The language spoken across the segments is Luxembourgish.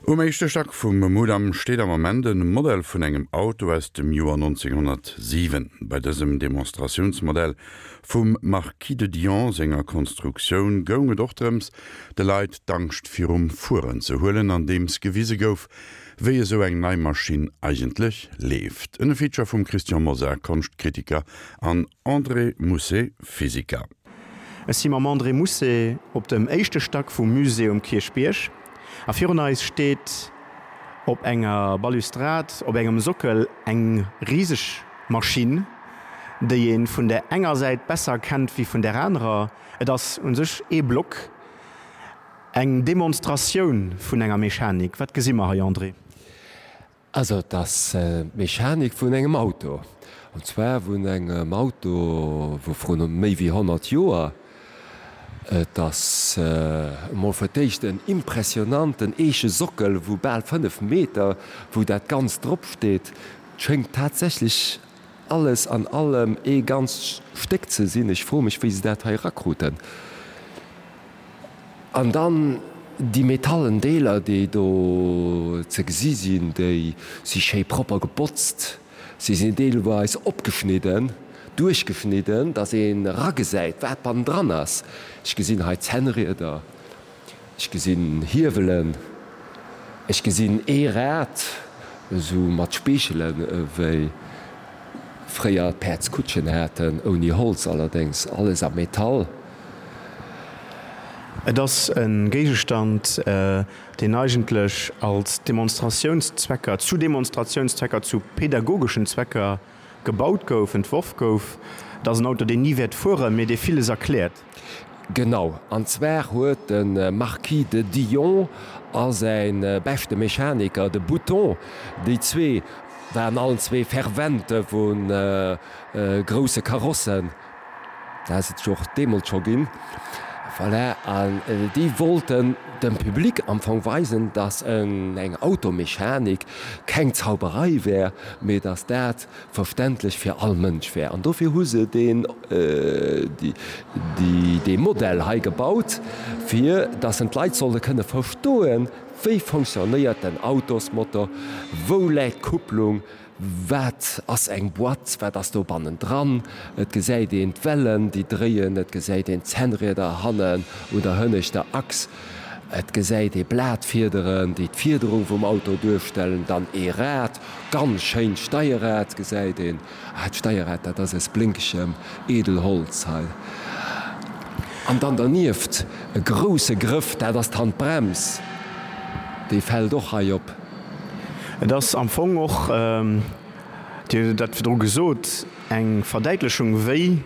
Um éischte Stack vum Mudam steet am Ament e Modell vun engem Auto aus dem Joer 1907. Bei dësem Demonstratiounsmodell vum Marquis de Dion senger Konstruktioun goung et och drëms, de Leit d'Angscht virum Fueren ze huelen, andeems gewise gouf, wéi esou eng nei Maschinn eigentlech leeft. En Feature vum Christian Mosar, Konschtkritiker, an André Mousset, Physiker. Ech si mam André Mousset op dem éischte Stack vum Musée um Kierchbierg a virun eis steet op enger Balustrad op engem Sockel eng riseg Maschinn, déi ee vun der enger Säit besser kennt wéi vun der anerer. Et ass u sech ee Block, eng Demonstratioun vun enger Mechanik. Wat gesi mer hei, André? Also et ass d'Mechanik vun engem Auto, an zwar vun engem Auto vu vrun méi wéi 100 Joer. Et ass emol fir d'éischt en impressionanten eeche Sockel vu bal 5 Meter, wou dat Ganzt drop steet. Et schéngt tatsächlech alles an allem ee ganzt Stéck ze sinn. Ech froe mech, wéi se dat hei erakruten. An dann déi metallen Deeler, déi do ze gesi sinn, déi si schéi propper gebotzt. Si sinn deelweis opgeschnidden, duerchgeschnidden, dass een eragesäit, wat bannendran ass. Ech gesinn hei Zännrieder, ech gesinn Hiewelen, ech gesinn ee Rad, esou mat Speechelen, ewéi fréier d'Päerdskutschen haten, ouni Holz allerdéngs, alles a Metall. Et ass e Géigestand, deen eigentlech als Demonstratiounszwecker, zu Demonstratiounszwecker, zu pedagogeschen Zwecker gebaut gouf, entworf gouf. Et ass en Auto, deen ni wäert fueren, mee dee villes erkläert. Genau, an zwar huet de Marquis de Dillon a säi beschte Mechaniker, de Bouton, déi zwee waren allen zwee Fervente vu grousse Karossen, Dat ass et jo och deemools scho ginn. Voilà, an déi wollten dem Public am Fong weisen, dass eng Automechanik keng Zauberei wär, mee dass dat verständlech fir all Mënsch wär. An dofir hu se deen, dee Modell hei gebaut, fir dass en d'Leit solle kënne verstoen, wéi fonctionnéiert den Autosmotor, wou läit d'Kupplung, Wat ass eng Boîte? Wat ass do bannendran? Et gesäit een d'Wellen, déi dréien, et gesäit een d'Zännrieder hannen un der hënneschter Achs, et gesäit ee Blatfiederen, déi d'Fiederung vum Auto duerstellen, dann ee Rad, ganz schéint Steierrad gesäit een. Ah, d'Steierrad, dat ass aus blénkegem Edelholz hei. An dann dernieft e grousse Grëff, dat ass d'Handbrems, déi fält och hei op. Et ass am Fong och, Dir hutt dat virdru gesot, eng Verdäitlechung, wéi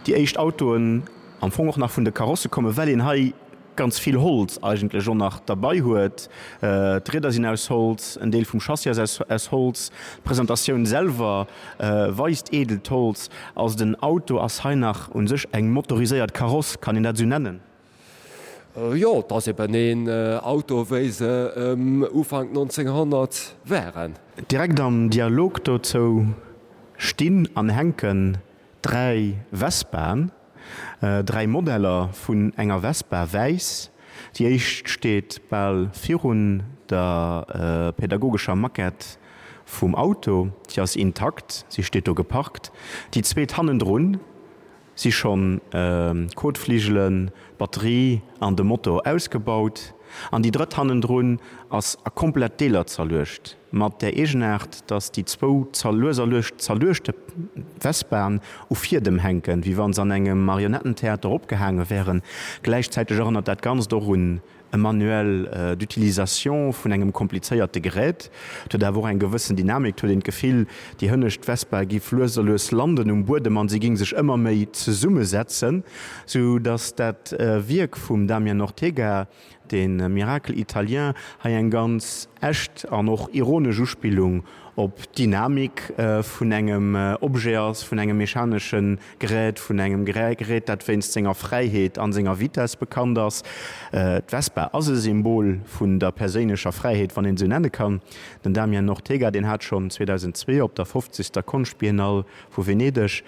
déi éischt Autoen am Fong och nach vun de Karosse kommen, well een hei ganz vill Holz eigentlech och nach derbei huet. D'Rieder sinn aus Holz, en Deel vum Chassis ass aus Holz, d'Presentatioun selwer weist eedelt Holz. Also den Auto ass hei nach u sech eng motoriséiert Kaross, kann een dat esou nennen? Jo, et ass eben een Auto wéi se Ufank 1900 waren. Direkt am Dialog dozou stinn an hänken 3 Vespaen, 3 Modeller vun enger Vespa, wäiss. Déi éischt steet bal virun der pädagogescher Maquette vum Auto, si ass intakt, si steet do geparkt. Déi zweet hannendrun Si schonn d'Kotfligelen, d'Batterie an de Motor ausgebaut. An déi drëtt hannendrun ass a komplett Deeler zerluecht, mat där Eegenaart, dass déi zwou lues a lues zerluechte Vespaen u Fiedem hänken, wéi wa se an engem Marionettentheater opgehaange wären. Gläichzäiteg erënnert dat Ganzt och un e Manuel d'utilisation vun engem komplizéierte Gerät. Et huet awer och eng gewëssen Dynamik, et huet een d'Gefill, déi hënnescht Vespa giff lues a lues landen um Buedem an si ging sech ëmmer méi zesummesetzen, sou datt dat Wierk vum Damien Ortega, de Miracle italien, hei eng ganz echt an och ironesch Uspillung. op d'Dynamik vun engem Objet ass, vun engem mechanesche Gerät, vun engem Gerät, dat wéinst senger Fräiheet an senger Vitess bekannt ass. D'Vespa ass e Symbol vun der perséinlecher Fräiheet, wann een esou nenne kann. Den Damien Ortega, deen hat schonn 2002 op der fofzegster Konschtbiennale vu Venedeg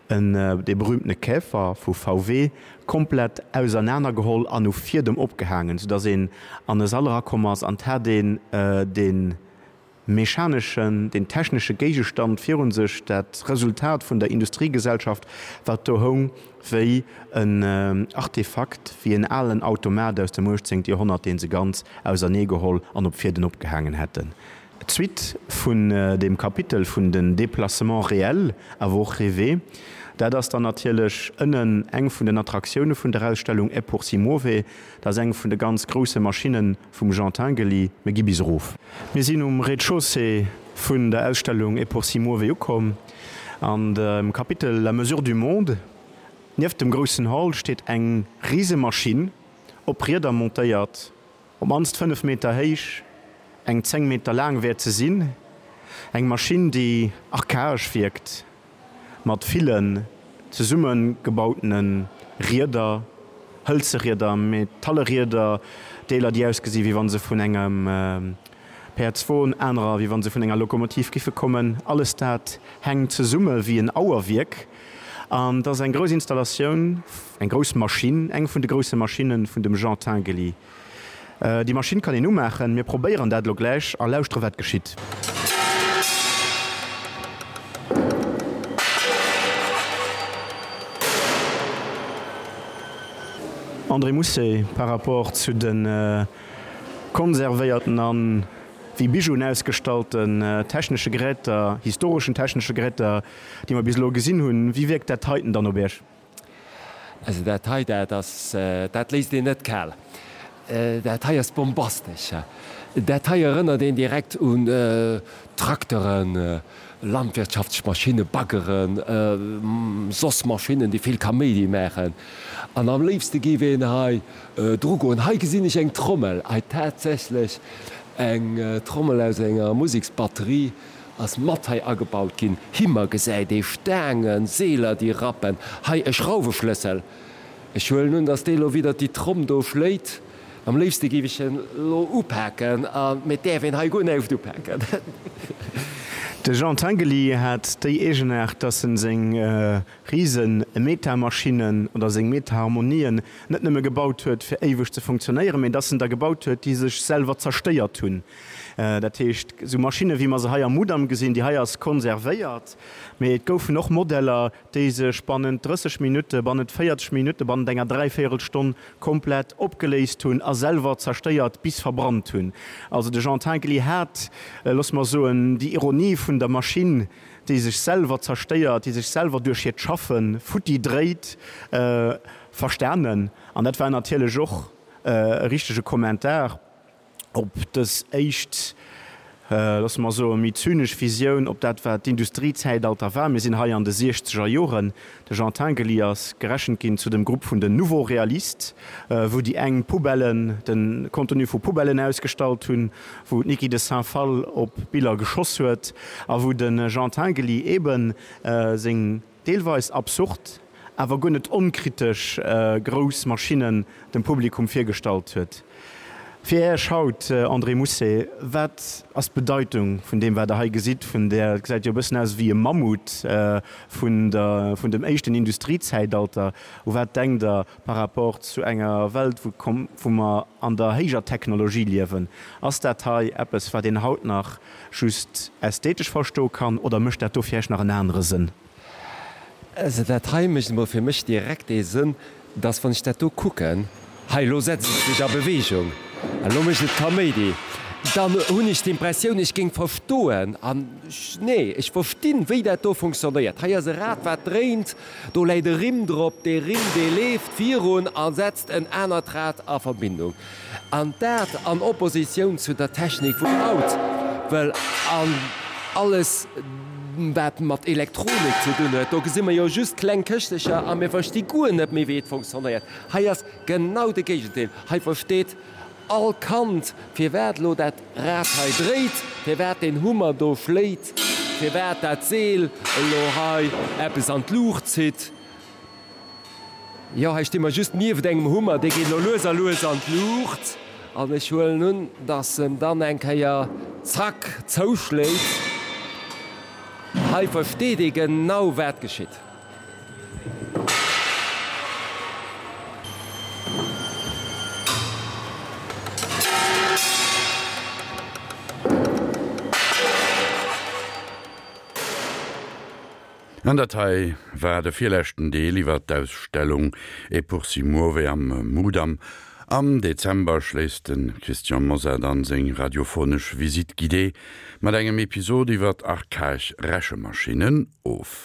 en dee berühmtene Käfer vu VW komplett ausernanergeholl an u Fiedem opgehaangen, soudass een an e Sall erakomm ass an 't hat een dee mechaneschen, deen technesche Géigestand virun sech, dat Resultat vun der Industriegesellschaft, wat do houng wéi en Artefakt, wéi en alen Automat aus dem 18. Joerhonnert, dee se ganz auserneegeholl an op Fieden opgehaangen hätten. D'Suite vun deem Kapitel vun den Déplacements réels, awer och rêvés, dat ass dann natierlech ënnen eng vun den Attraktioune vun der Ausstellung Et pour si muove. Dat ass eng vun de ganz grousse Maschinne vum Jean Tinguely. Mir gi bis erof. Mir sinn um Rez-de-chaussée vun der Ausstellung Et pour si muove ukomm. An dem Kapitel La mesure du monde, nieft dem groussen Hall, steet eng Risemaschinn, op Rieder montéiert. Op mannst 5 Meter héich, eng 10 Meter laang wäert se sinn. Eng Maschinn, déi archaesch wierkt, mat villen zesummegebautene Rieder, hëlze Rieder, metalle Rieder, Deeler, déi ausgesi wéi wa se vun engem Päerdswon, anerer wéi wa se vun enger Lokomotiv giffe kommen. Alles dat hänkt zesumme wéi en Auerwierk. An et ass eng grouss Installatioun, eng grouss Maschinn, eng vun de grousse Maschinne vun dem Jean Tinguely. Déi Maschinn kann een umaachen. Mir probéieren dat elo gläich a lauschtere wat geschitt. André Mousset, Par rapport zu de konservéierten an wéi Bijouen ausgestallten technesche Geräter, historeschen technesche Geräter, déi mer bis elo gesinn hunn, wéi wierkt dat heiten dann op Iech? Also dat hei, dat ass, dat léisst een net kal. Dat hei ass bombastesch. Dat hei erënnert een direkt un Trakteren, landwirtschaftlech Maschinnen, Baggeren, soss Maschinnen, déi vill Kaméidi maachen. An am léifste géif een hei drugoen. Hei gesinn ech eng Trommel, hei tatsächlech eng Trommel aus enger Museksbatterie. Ass mat hei agebaut ginn. Himmer gesäit ee Staangen, Seeler déi rappen. Hei e Schrauweschlëssel. Ech huelen un, dass dee lo widder déi Tromm do schléit. Am léifste géif ech en lo upaken, a mee et däerf een hei guer näischt upaken. De Jean Tinguely hat déi Eegenaart, dass en seng rise Metamaschinnen oder seng Metaharmonien net nëmme gebaut huet fir éiweg ze funktionéieren, mee dass en der gebaut huet, déi sech selwer zerstéiert hunn. Dat heescht, esou Maschinne wéi mer se hei am Mudam gesinn, déi hei ass konservéiert, mee et goufen och Modeller, déi sech bannent 30 Minutte, bannent 40 Minutte, bannent enger Dräivéierelstonn komplett opgeléist hunn a selwer zerstéiert bis verbrannt hunn. Also de Jean Tinguely hat, loosse mer soen, déi Ironie vun der Maschinn, déi sech selwer zerstéiert, déi sech selwer duerch hiert Schaffe futti dréit, verstanen. An dat war natierlech och e richtege Kommentar op dës éischt, loosse mer soen, méi zynesch Visioun op dat, wat d'Industriezäitalter war. Mir sinn hei an de siechzeger Joren. De Jean Tinguely ass gerechent ginn zu dem Grupp vun den Nouveaux Réalistes, wou déi eng Poubellen, de Contenu vu Poubellen ausgestallt hunn, wou d'Niki de Saint-Phalle op Biller geschoss huet a wou de Jean Tinguely eebe seng deelweis absurd, awer guer net onkritesch grouss Maschinnen dem Publikum virgestallt huet. Fir Iech haut, André Mousset, wat ass d'Bedeitung vun deem, wat Der hei gesitt, vun där, et gesäit jo e bëssen aus ewéi e Mammut, vun der, vun dem éischten Industriezäitalter? U wat denkt Der par rapport zu enger Welt, wou, wou mer an der héijer Technologie liewen? Ass dat hei eppes, wat een haut nach just ästhetesch verstoe kann, oder mécht dat do fir Iech nach en anere Sënn? Also dat hei mécht emol fir mech direkt dee Sënn, dass wann ech dat do kucken, hei elo setzt et sech a Bewegung, elo mécht et Kaméidi, dann hunn ech d'Impressioun, ech géing verstoen, an nee, ech verstinn, wéi dat do funktionéiert. Hei ass e Rad wat dréint, do läit e Rimm drop, dee Rimm dee leeft virun a setzt en anert Rad a Verbindung. An dat an Oppositioun zu der Technik vun haut, well an alles wat mat Elektronik ze dun huet, do gesi mer jo just kleng Këschtecher a mir versti guer net méi wéi et funktionéiert. Hei ass genau de Géigendeel, hei versteet. all Kand, firwat elo dat Rad hei dréit, firwat deen Hummer do schléit, firwat dat Seel elo hei eppes an d'Luucht zitt. Jo, hei sti mer just nieft engem Hummer, dee geet elo lues a lues an d'Luucht an ech huelen un, dass en dann eng Kéier zack zouschléit. Hei versteet ee genau, wat geschitt. An dat hei war de virleschten Deel iwwer d'Ausstellung E pur si muove am Mudam. Am Dezember schléisst de Christian Mosar dann seng radiophonesch Visite guidée mat engem Episod iwwer archaesch Rechemaschinen of.